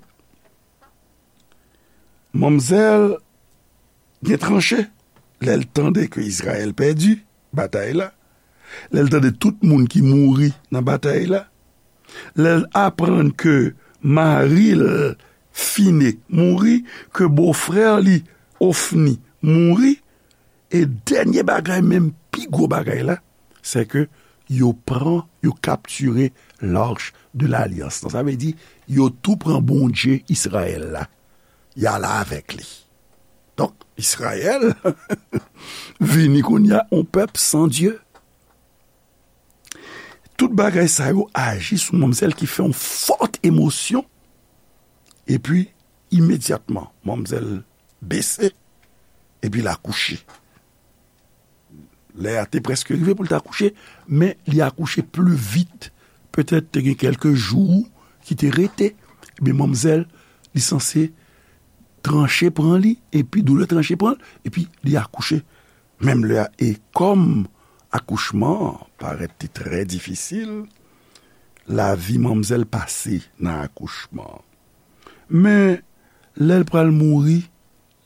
manmzèl gen tranche lè l tande ke Izrayèl pèdi batay la, lè l tande tout moun ki mouri nan batay la, lè l aprann ke mari l Fine mouri, ke bofrè li Ofni mouri, e dènye bagay, menm pi gwo bagay la, se ke yo pran, yo kaptire l'arche de l'alliance lan. Sa vle di, yo tou pran Bondye Izrayèl la, y ale avèk li. Donk, Izrayèl vini kounye a yon pèp san Dye. Tout bagay sa yo aji sou manmzèl ki fè yon fòt emosyon. Epi, imedyatman, manmzèl bese, epi l akouche. Lè a te prèske rive pou l t akouche, men li akouche pli vit. Petèt te gen kèlke jou ki te rete. Ebyen, manmzèl, li sanse tranche pran li, epi doulè tranche pran l, epi li akouche menm lè a. E kòm akouchman an parèt te trè difisil, lavi manmzèl pase nan akouchman an. Men, lè l pral mouri,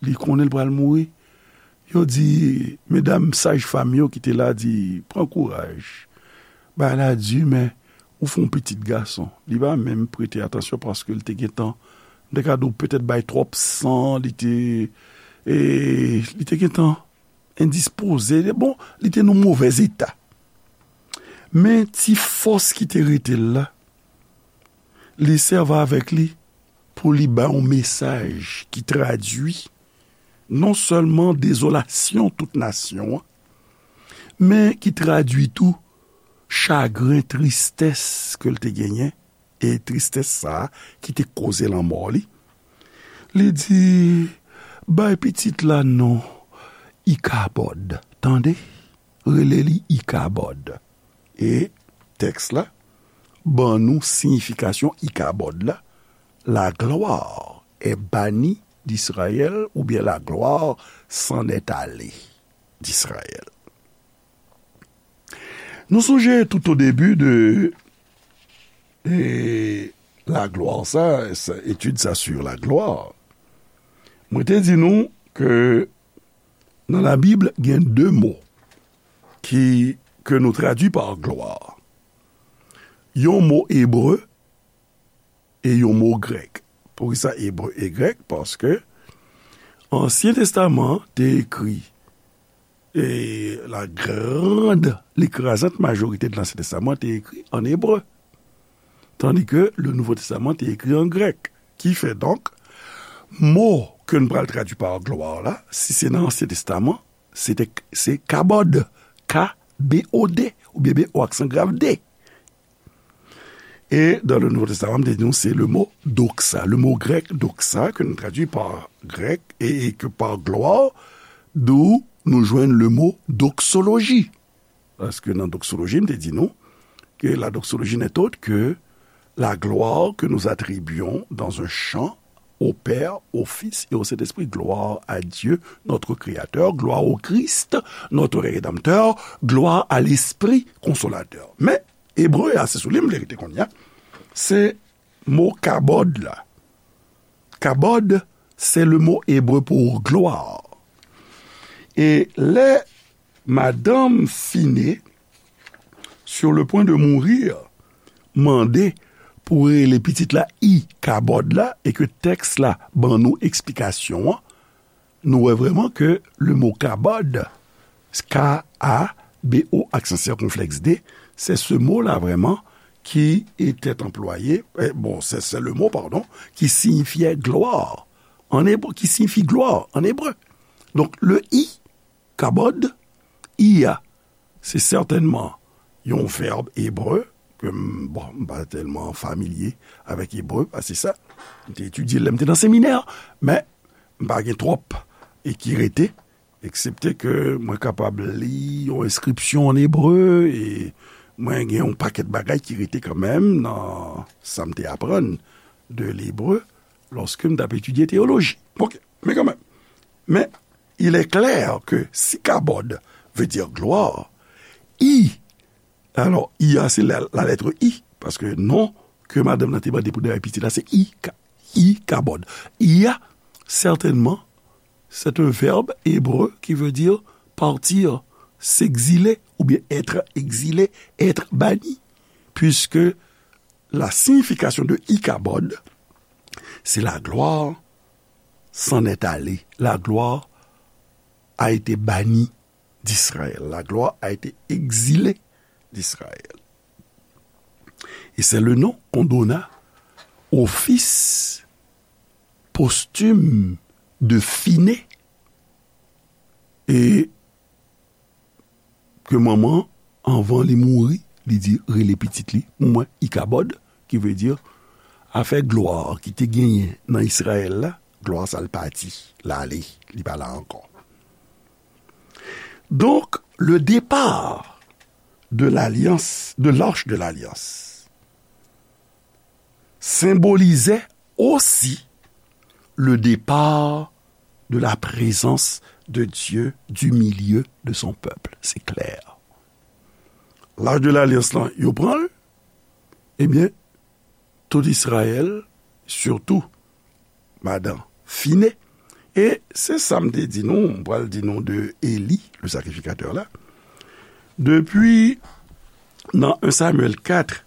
li konnen l pral mouri, yo di, medam sajfanm yo ki te la di, pran kouraj. Bagay la di, men ou fè yon pitit gason. Li pa menm prete atansyon paske li te gentan, m te ka di w petèt bay twòp san, li te, e, li te gentan endispoze. Bon, li te nan movèz eta. Men ti fòs ki te rete l la, li sèvi avèk li pou li bay yon mesaj ki tradui non sèlman dezolasyon tout nasyon an, men ki tradui tou chagren, tristès ke l te genyen, e tristès sa a ki te koze lanmò li. Li di, bay pitit la non Ikabòd, tande? Rele li Ikabòd. E tèks la ban nou siyifikasyon Ikabòd la, la gloire est bannie d'Israël, oubyen la gloire s'en est allée d'Israël. Nou sonje tout o debi de, e, la gloire sa, sa, etid sa sur la gloire. Mwen te di nou ke nan Labib, gen de mo ki, ke nou tradui pa glwa. Yon mo ebre e yon mo grèk. Poukisa ebre e grèk? Paske Ansyen Testaman an te ekri, e la grande, l'écrasante majorité de l'Ancien Testament te ekri an ebre. Tandis que le Nouveau Testament te ekri an grèk. Ki fè donk, mo ke n pral tradui pa glwa la, si se nan Ansyen Testaman, se te, se kabod, K B O D, oubyen B O aksan grav D. E dans le Nouveau Testament, m te di nou, se le mo doxa, le mo grèk doxa, ke nou tradui pa grèk e, e ke pa glwa, d'où nou jwenn le mo doxologie. Paske nan doxologie, m te di nou, que la doxologie n'est autre que la gloire que nous attribuons dans un chant au Père, au Fils et au Saint-Esprit. Gloire à Dieu, notre Créateur, gloire au Christ, notre Rédempteur, gloire à l'Esprit Consolateur. Men, ebre a, se sou li m vle rete kounye a, se mo kabod la. Kabod, c'est le mot hébreu pour gloire. E lè madanm Fine, sur le point de mourir, mande pou rele pitit la Ikabod la, e ke tèks la ban nou eksplikasyon an, nou wè vrèman ke le mo kabod, K A B O, aksan sikonflèks D, c'est ce mot-là vraiment qui était employé, eh, bon, c'est, c'est le mot, pardon, qui signifiait gloire en hébreu, qui signifie gloire en hébreu. Donc, le I, kabod, I a, se sètènman yon vèb ebre, ke m, bon, m pa tèlman familye avèk ebre, pa se sa. M te etidye l lè m te nan seminè, men m pa gen twòp e ki rete, eksepte ke mwen kapab li yon enskripsyon an ebre, e mwen gen yon pakèt bagay ki rete kanmenm nan sa m te aprann de lebre lòske m t ap etidye teyoloji. Ok, men kanmenm. Men, il est clair que si kabod veut dire gloire, I, alò, I a, se la, la lettre I, paske non ke madanm nan te mande pou dèyè pitit la, se I, ka, I, kabod. I a, certainement, c'est un verbe hébreu qui veut dire partir, s'exiler, ou bien être exilé, être banni, puisque la signification de Ikabod, c'est la gloire s'en est allée. La gloire a été bannie d'Israël. La gloire a été exilée d'Israël. Et c'est le nom qu'on donna au fils posthume de Finé. E ke manman, anvan li mouri, li di rele pitit li, mwen, Ikabod, ki vle di afè glwa ki te genyen nan Izrayèl la, glwa sa l pati, l ale, li pa la ankò. Donk, le départ de l'alliance, de l'arche de l'alliance, symbolisait aussi le départ de la présence de Dieu du milieu de son peuple. Se klè. Lach de lalyans lan, yo pran l, ebyen, tout Izrayèl, sitou madan Finé. E se sa m te di nou, m pral di nou de Eli, le sacrificateur la. Depi nan un Samuel quatre,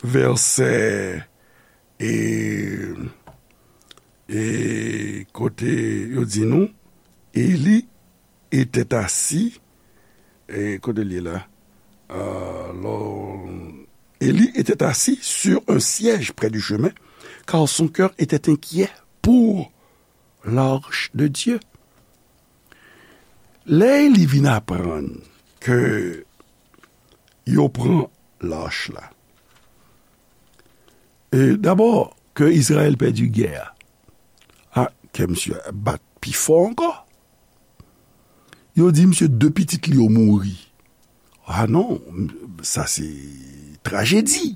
vèsè, e, e kote yo di nou, Eli était assis, e kote l ye la? Alò, Eli était assis sur un siège près du chemin, car son cœur était inquiet pour l'arche de Dieu. Lè Eli vin aprann ke yo pran lach la, e dabò, ke Izrayèl pèdi gè a, a, kè misye bat pi fò ankò. Yo di misye de pitit li yo mouri. A non, sa se trajedi.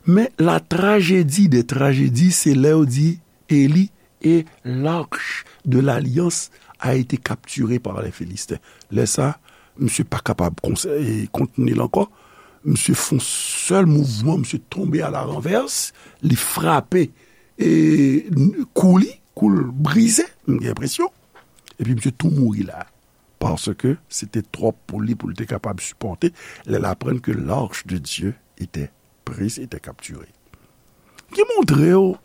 Men la trajedi de trajedi, se lè yo di Eli, et l'arche de l'alliance a été capturée par les Philistins. Lè sa, misye pa kapab konse-, e, kontni l ankò. Misye fè yon sèl mouvman, misye tonbe à la renverse, li frape, e, kou li, kou l brize, m gen enpresyon. Epi misye tou mouri la. Paske se te twòp pou li, pou l te kapab sipòte lè l aprann ke l'arche de Dieu était prise, était capturée. Ki montre w,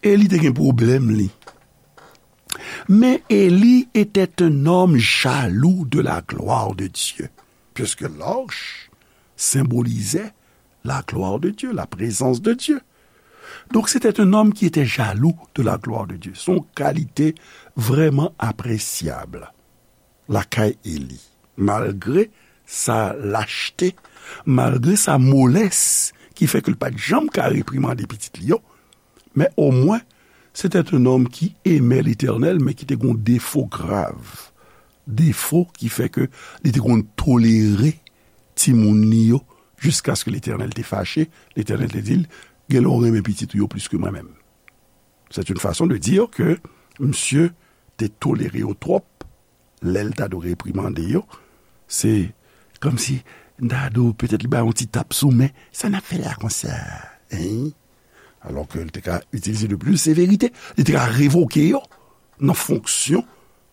Eli te gen pwoblèm li. Mais Élie était un homme jaloux de la gloire de Dieu, puisque l'arche symbolisait la gloire de Dieu, la présence de Dieu. Donc, c'était un homme qui était jaloux de la gloire de Dieu. Se yon kalite vrèman apresyab lakay Eli. Malgre sa lachte, malgre sa molès ki fè ke l pa t janm ka reprimande pitit li yo, men omwen, c'était un homme qui aimait l'Éternel, men ki te gen yon defo grav. Defo ki fè ke li te konn tolere timoun li yo, jiskaske Letènèl te fache. Letènèl te di l, "Genlè w renmen pitit ou yo plis ke mwen menm." C'est une façon de dire ke misye te tolere yo twòp, lè l ta dwe reprimande yo, se kòmsi m ta di w petèt li ba yon ti tap sou men, "Sa n ap fè la konsa, hein?" Alò ke l te ka itilize de plis severite, li te ka revoke yo nan fonksyon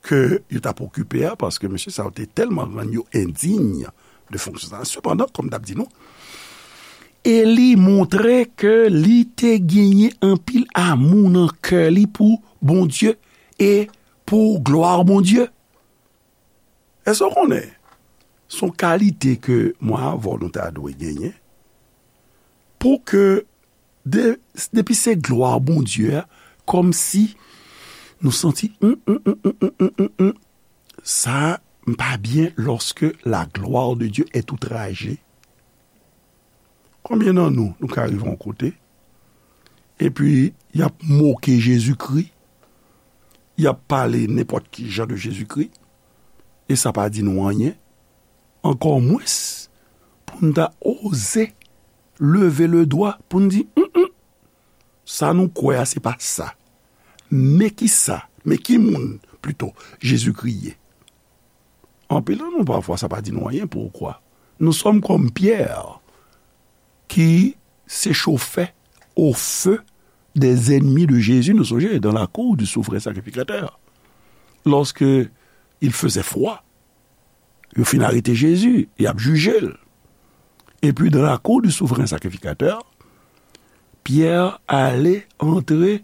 ke yo t ap okipe a, paske mesye sa yo te tèlman rann yo endiy de fonksyon sa. Sepandan, kòm m t ap di nou, Eli montre ke li te genyen anpil amou nan kè li pou Bondye e pou glwa Bondye. Èske w konnen? Se yon kalite ke mwen avè w nou ta dwe genyen pou ke de, depi se glwa Bondye a, kòmsi nou santi, hum, hum, hum, hum, hum, hum, hum, sa m pa byen lorsque la gloire de Dieu est outragée. Konbyen nan nou, nou ka rive yon kote, epi y ap moke Jezikri, y ap pale nenpòt ki jan de Jezikri, e sa pa di nou anyen, ankò mwens pou n ta oze leve le dwa pou n di, "Hum, hum, sa nou kwè a, se pa sa." Men ki sa, men ki moun, plito, Jezikri ye? Anpil nan nou, pafwa, sa pa di nou anyen. Poukwa? Nou sòm kòm Pyè, ki se chofè au feu des ennemis de Jésus. Nou sonje, dans la cour du souverain sacrificateur, lorsque il faisait froid, yo fin arete Jezi, y ap jije l. Epi, dans la cour du souverain sacrificateur, Pyè ale, antre,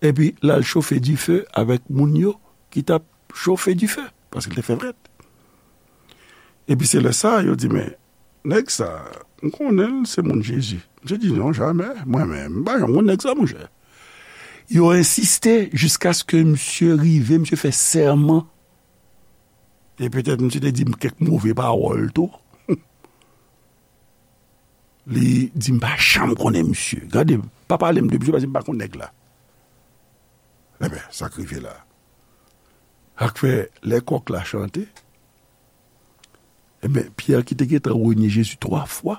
epi l al chofe dife avèk moun yo ki t ap chofe dife, paske l te fè frèt. Epi se lè sa a, yo di, "Men, nèg sa, m konnen l se moun Jezi." Misye di, "Non, jamè, mwen menm, m pa janm konn nèg sa, monchè." Yo ensiste jiskaske misye rive, misye fè sèman. E petèt misye te di m kèk move pawòl tou. Li di, "M pa janm konnen misye. Gade, pa pale m de misye, paske m pa konn nèg la." Enben, sa k rive la. Sa k fè, lè kòk la chante, enben, Pyè ki te gentan renye Jezi twa fwa,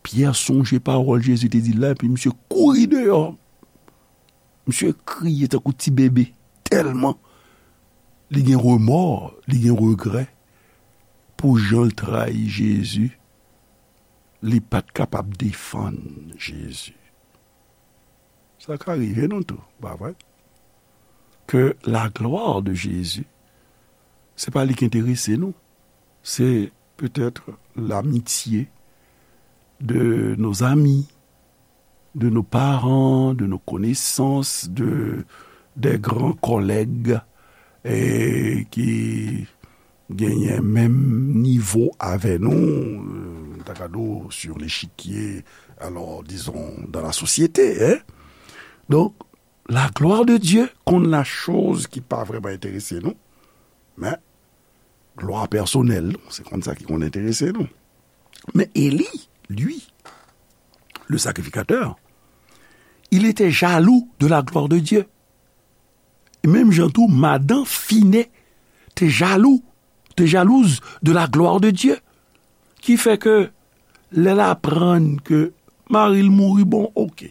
Pyè sonje pawòl Jezi te di l la, epi misye kouri deyò. Misye kriye tankou ti bebe, tèlman li gen remò, li gen regrè pou jan l trayi Jezi. Li pa t kapab defann Jezi. Sa ka rive nou tou, pa vre? Ke la gloire de Jésus, se pa li ki enterese nou. Se petèt lamitye de nos amis, de nos parents, de nos connaissances, de, des grands collègues, e ki genyen menm nivo avè nou, euh, m ta ka di w, sur l'échiquier, alors, disons, dans la société, hein. Donk, la gloire de Dieu konn la choz ki pa vrèman enterese nou, men glwa pèsonèl nou, se konn sa ki konn enterese nou. Men Eli, lui, le sacrificateur, il était jaloux de la gloire de Dieu. E menm jan tou, madan Fine te jalou, te jalouz de la gloire de Dieu. Ki fè ke lè l aprann ke mari l mouri, bon, oke.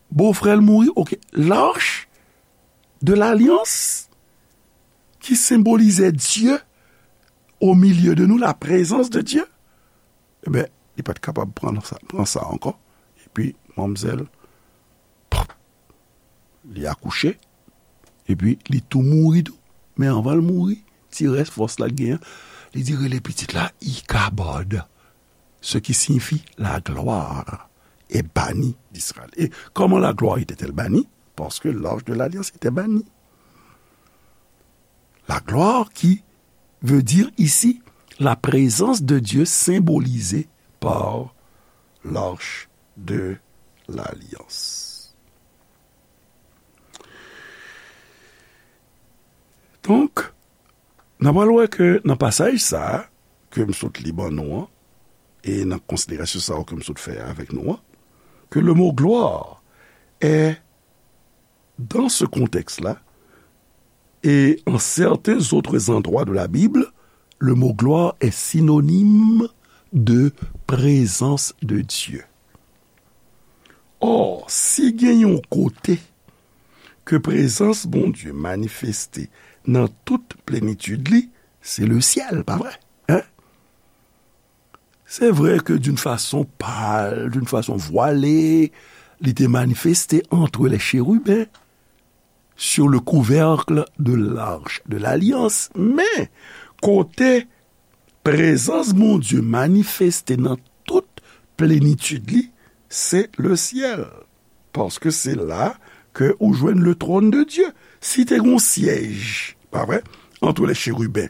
Bofrè l mouri, oke. L'arche de l'alliance, ki senbolize Dye au milieu de nous, la présence de Dieu, enben, li pa t kapab pran sa, pran sa ankò. Epi, manmzèl, pop, li akouche, epi li tou mouri tou. Men anvan l mouri, ti rès fòs la l genyen, li di rele pitit la Ikabod, ce qui signifie la gloire est bannie d'Israël. Et comment la gloire était-elle bannie? Parce que l'arche de l'alliance était bannie. La gloire qui veut dire ici la présence de Dieu symbolisée par l'arche de l'alliance. Donk, n a pral wè ke nan pasaj sa a, ke m sot li ban nou an, e nan konsiderasyon sa yo ke m sot fè avèk nou an, ke le mo gloire est, dans ce contexte-là, et en certains autres endroits de la Bible, le mot gloire est synonyme de présence de Dieu. Or, si gen yon kote ke prezans Bondye manifeste nan tout plenitid li, se le syèl, pa vre? Hein? Se vre ke d'une façon pâle, d'une façon voilée, li te manifeste entre les chérubins, sur le couvercle de l'arche de l'alliance, men kote prezans Bondye manifeste nan tout plenitid li, se le syèl. Paske se la ke ou jwenn le trône de Dieu. Si te gon syèj, pa vre, entre les chérubins,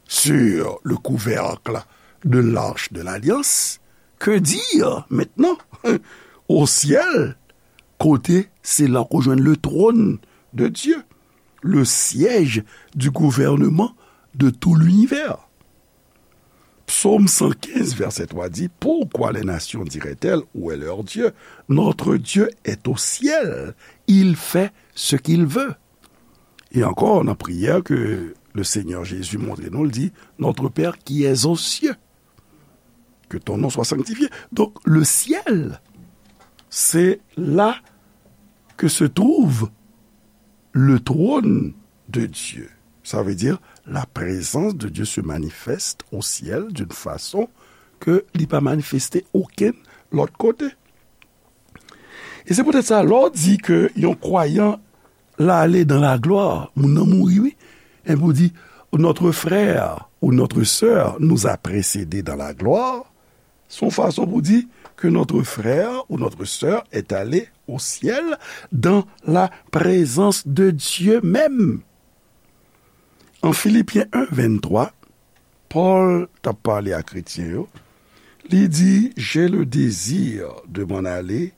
sur le couvercle de l'arche de l'alliance, que dire maintenant au ciel, kote se la ou jwenn le trône de Dieu, le siège du gouvernement de tout l'univers. Psaume cent quinze, verset trois dit, pourquoi les nations diraient-elles, où est leur Dieu? Notre Dieu est au ciel, il fait ce qu'il veut. E ankò, nan priyè ke le Seigneur Jésus montre nou, li di, Notre Père qui es aux cieux, que ton nom soit sanctifié. Donc, le ciel, c'est là que se trouve le trône de Dieu. Ça veut dire, la présence de Dieu se manifeste au ciel d'une façon ke li pa manifeste okenn lòt kote. E se poutèt sa, lè w di ke yon kwayan l ale dans la gloire, moun nan mouri, wi. Epi w di, notre frère ou notre sœur nous a précédés dans la gloire, se yon fason pou di ke notre frère ou notre sœur est allé au ciel dans la présence de Dieu même. An Filipyen en venntwa, Pòl t ap pale a kretyen yo, li di, j'ai le désir de m'en aller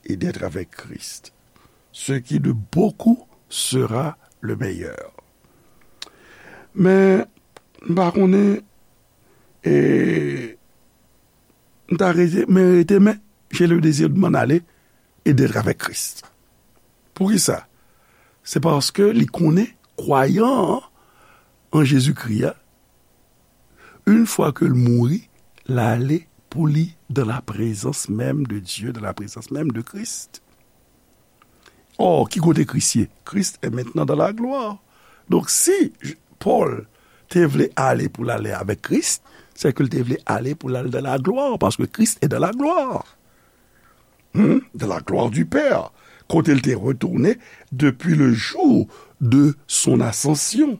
et d'être avec Christ, ce qui de beaucoup sera le meilleur. Men, m pa konnen, e, m ta rete, men rete, men, j'ai le désir de m'en aller et d'être avec Christ. Poukisa? Se paske li konnen kwayan an Jezikri a, une fois que l mouri, l ale pou li dans la présence même de Dieu, dans la présence même de Christ. Or, ki kote Kris ye? Christ est maintenant dans la gloire. Donk, si Pòl te vle ale pou l ale avèk Kris, se ke l te vle ale pou l al dans la gloire, paske Christ est dans la gloire. Hmm? Dans la gloire du Père, kote l te retounen depuis le jour de son ascension.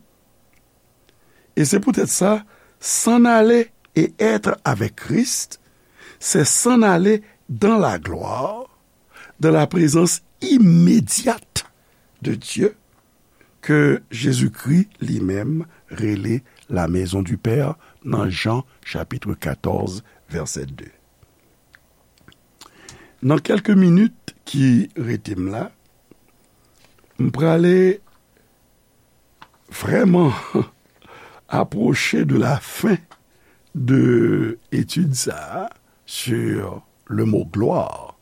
E se poutèt sa, s'en aller et être avec Christ, c'est s'en aller dans la gloire, dans la présence immédiate de Dieu, ke Jezikri li menm rele la maison du Père nan Jan chapit katòz, vèsè de. Nan kèlke minit ki rete m la, m prale vrèman apwoche de la fen de etid sa a sur le mot gloire,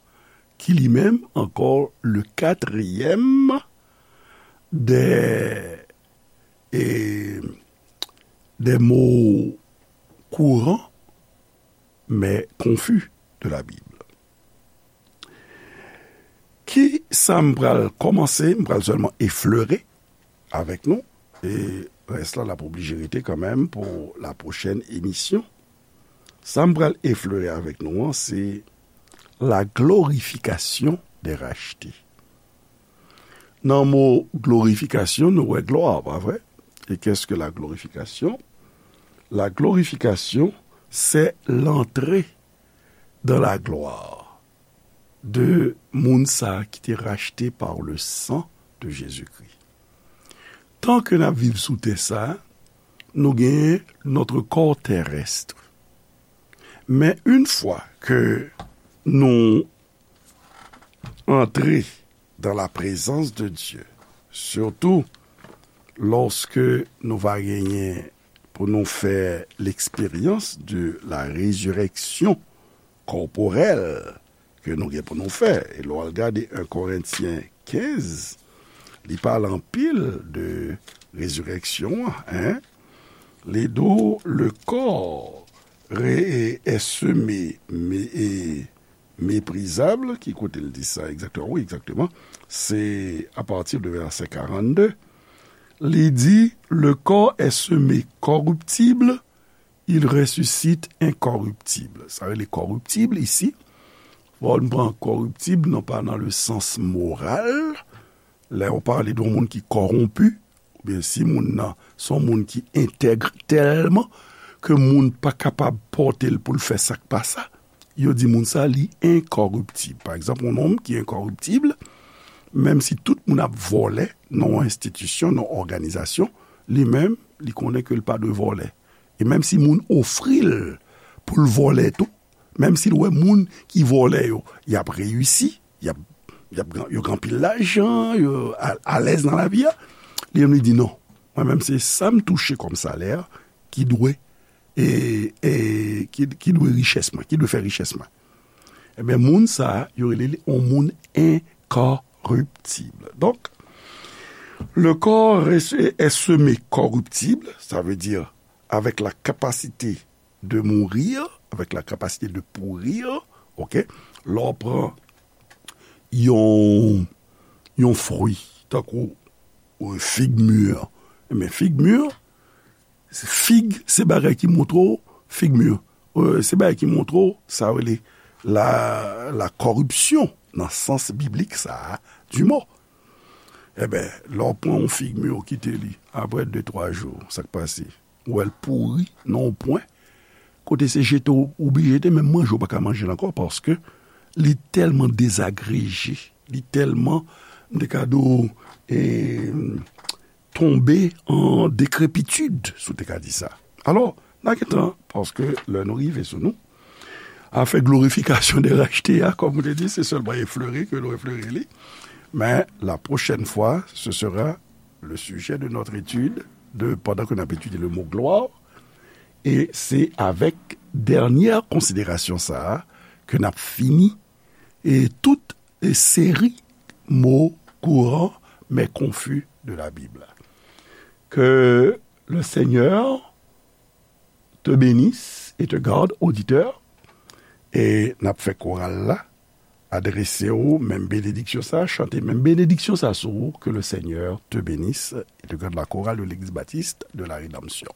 ki li menm ankò le katriyèm des, et, des mots courants mais confus de la Bible. Ki sa m pral kòmanse? M pral sèlman eflere avèk nou, e rès la, l ap oblije rete kanmenm pou la pwochèn emisyon. Sa m pral eflere avèk nou an, se la glorification des rachetés. Nan mo glorifikasyon, nou wè glwa, pa vre? Et qu'est-ce que la glorification? La glorification, c'est l'entrée dans la gloire de moun sa ki te rachte par le sang de Jésus-Christ. Tan ke n ap viv sou tè sa, nou genyen notre corps terrestre. Men une fois que nou antre dans la présence de Dieu, surtout lorsque nou va genyen pou nou fè l'expérience de la résurrection corporelle ke nou gen pou nou fè. E lè w al gade en Korentyen kenz, li pale anpil de rezireksyon an, en. Li di w, le corps re- est semé, mé- e méprisable. Ki kote l di sa egzakteman? Wi, egzakteman. Se apati de vèsè karannde. Li di, le corps est semé corruptible, il ressuscite incorruptible. Sa rele corruptible isi. Bon, nou pran corruptible, non pa nan le sans moral. Lè yo pale de yon moun ki kòwonpi, oubyen si moun nan se yon moun ki entèg tèlman ke moun pa kapab pòte l pou l fè sa k pa sa, yo di moun sa li enkòriptib. Pa egzanp, yon nonm ki enkòriptib, menm si tout moun ap vòlè nan yon enstitisyon, nan yon òganizasyon, li menm, li konnen ke l pa dwe vòlè. E menm si moun ofri l pou l vòlè tou, menm si l wè moun ki vòlè yo, y ap reyisi, y ap, y ap, yo gen anpil lajan, yo a- alèz nan lavi a, li menm li di non. Mwen menm se sa m touche kòm salè ki dwe, e, e, ki, ki dwe richès mwen, ki dwe fè richès mwen. Ebyen, moun sa a, yo rele li yon moun incorruptible. Donc, le corps est, est semé corruptible, ça veut dire avec la capacité de mourir, avec la capacité de pourrir, ok? Lè w pran yon, yon fwi, tankou, euh, fig mûr. Men fig mûr, fig, se bagay ki montre w, fig mûr. Euh, se bagay ki montre w, sa rele la, la corruption, nan sans biblik sa a, du mot. Ebyen, lè w pran yon fig mûr, w kite li, apre de, twa jou, sa k pase? Ou wè l pouri nan yon pwen, kote se jete w oblije jete, menm manje w pa ka manje l ankò, paske li tèlman dezagreje, li tèlman, m te ka di w, e, tonbe an décrépitude, si w te ka di sa. Alò, n a gentan, paske lè nou rive sou nou, afè glorifikasyon de rachte a, kòm ou te di, se sèlman eflere ke nou eflere li. Men, la prochaine fois, ce sera le sujet de notre étude, de, pendant que n ap etidye le mot gloire, e se avèk dènyè konsiderasyon sa a ke n ap fini, e tout, e seri mo kouran men konfi de la Bib la. Que le Seigneur te bénisse et te garde, auditeur, e n ap fè koral la adrese w menm benediksyon sa, chante menm benediksyon sa sou ou, que le Seigneur te bénisse et te garde, la chorale de l'Église baptiste de la Rédemption.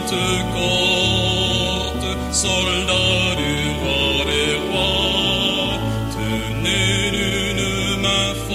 Sèkant sòlda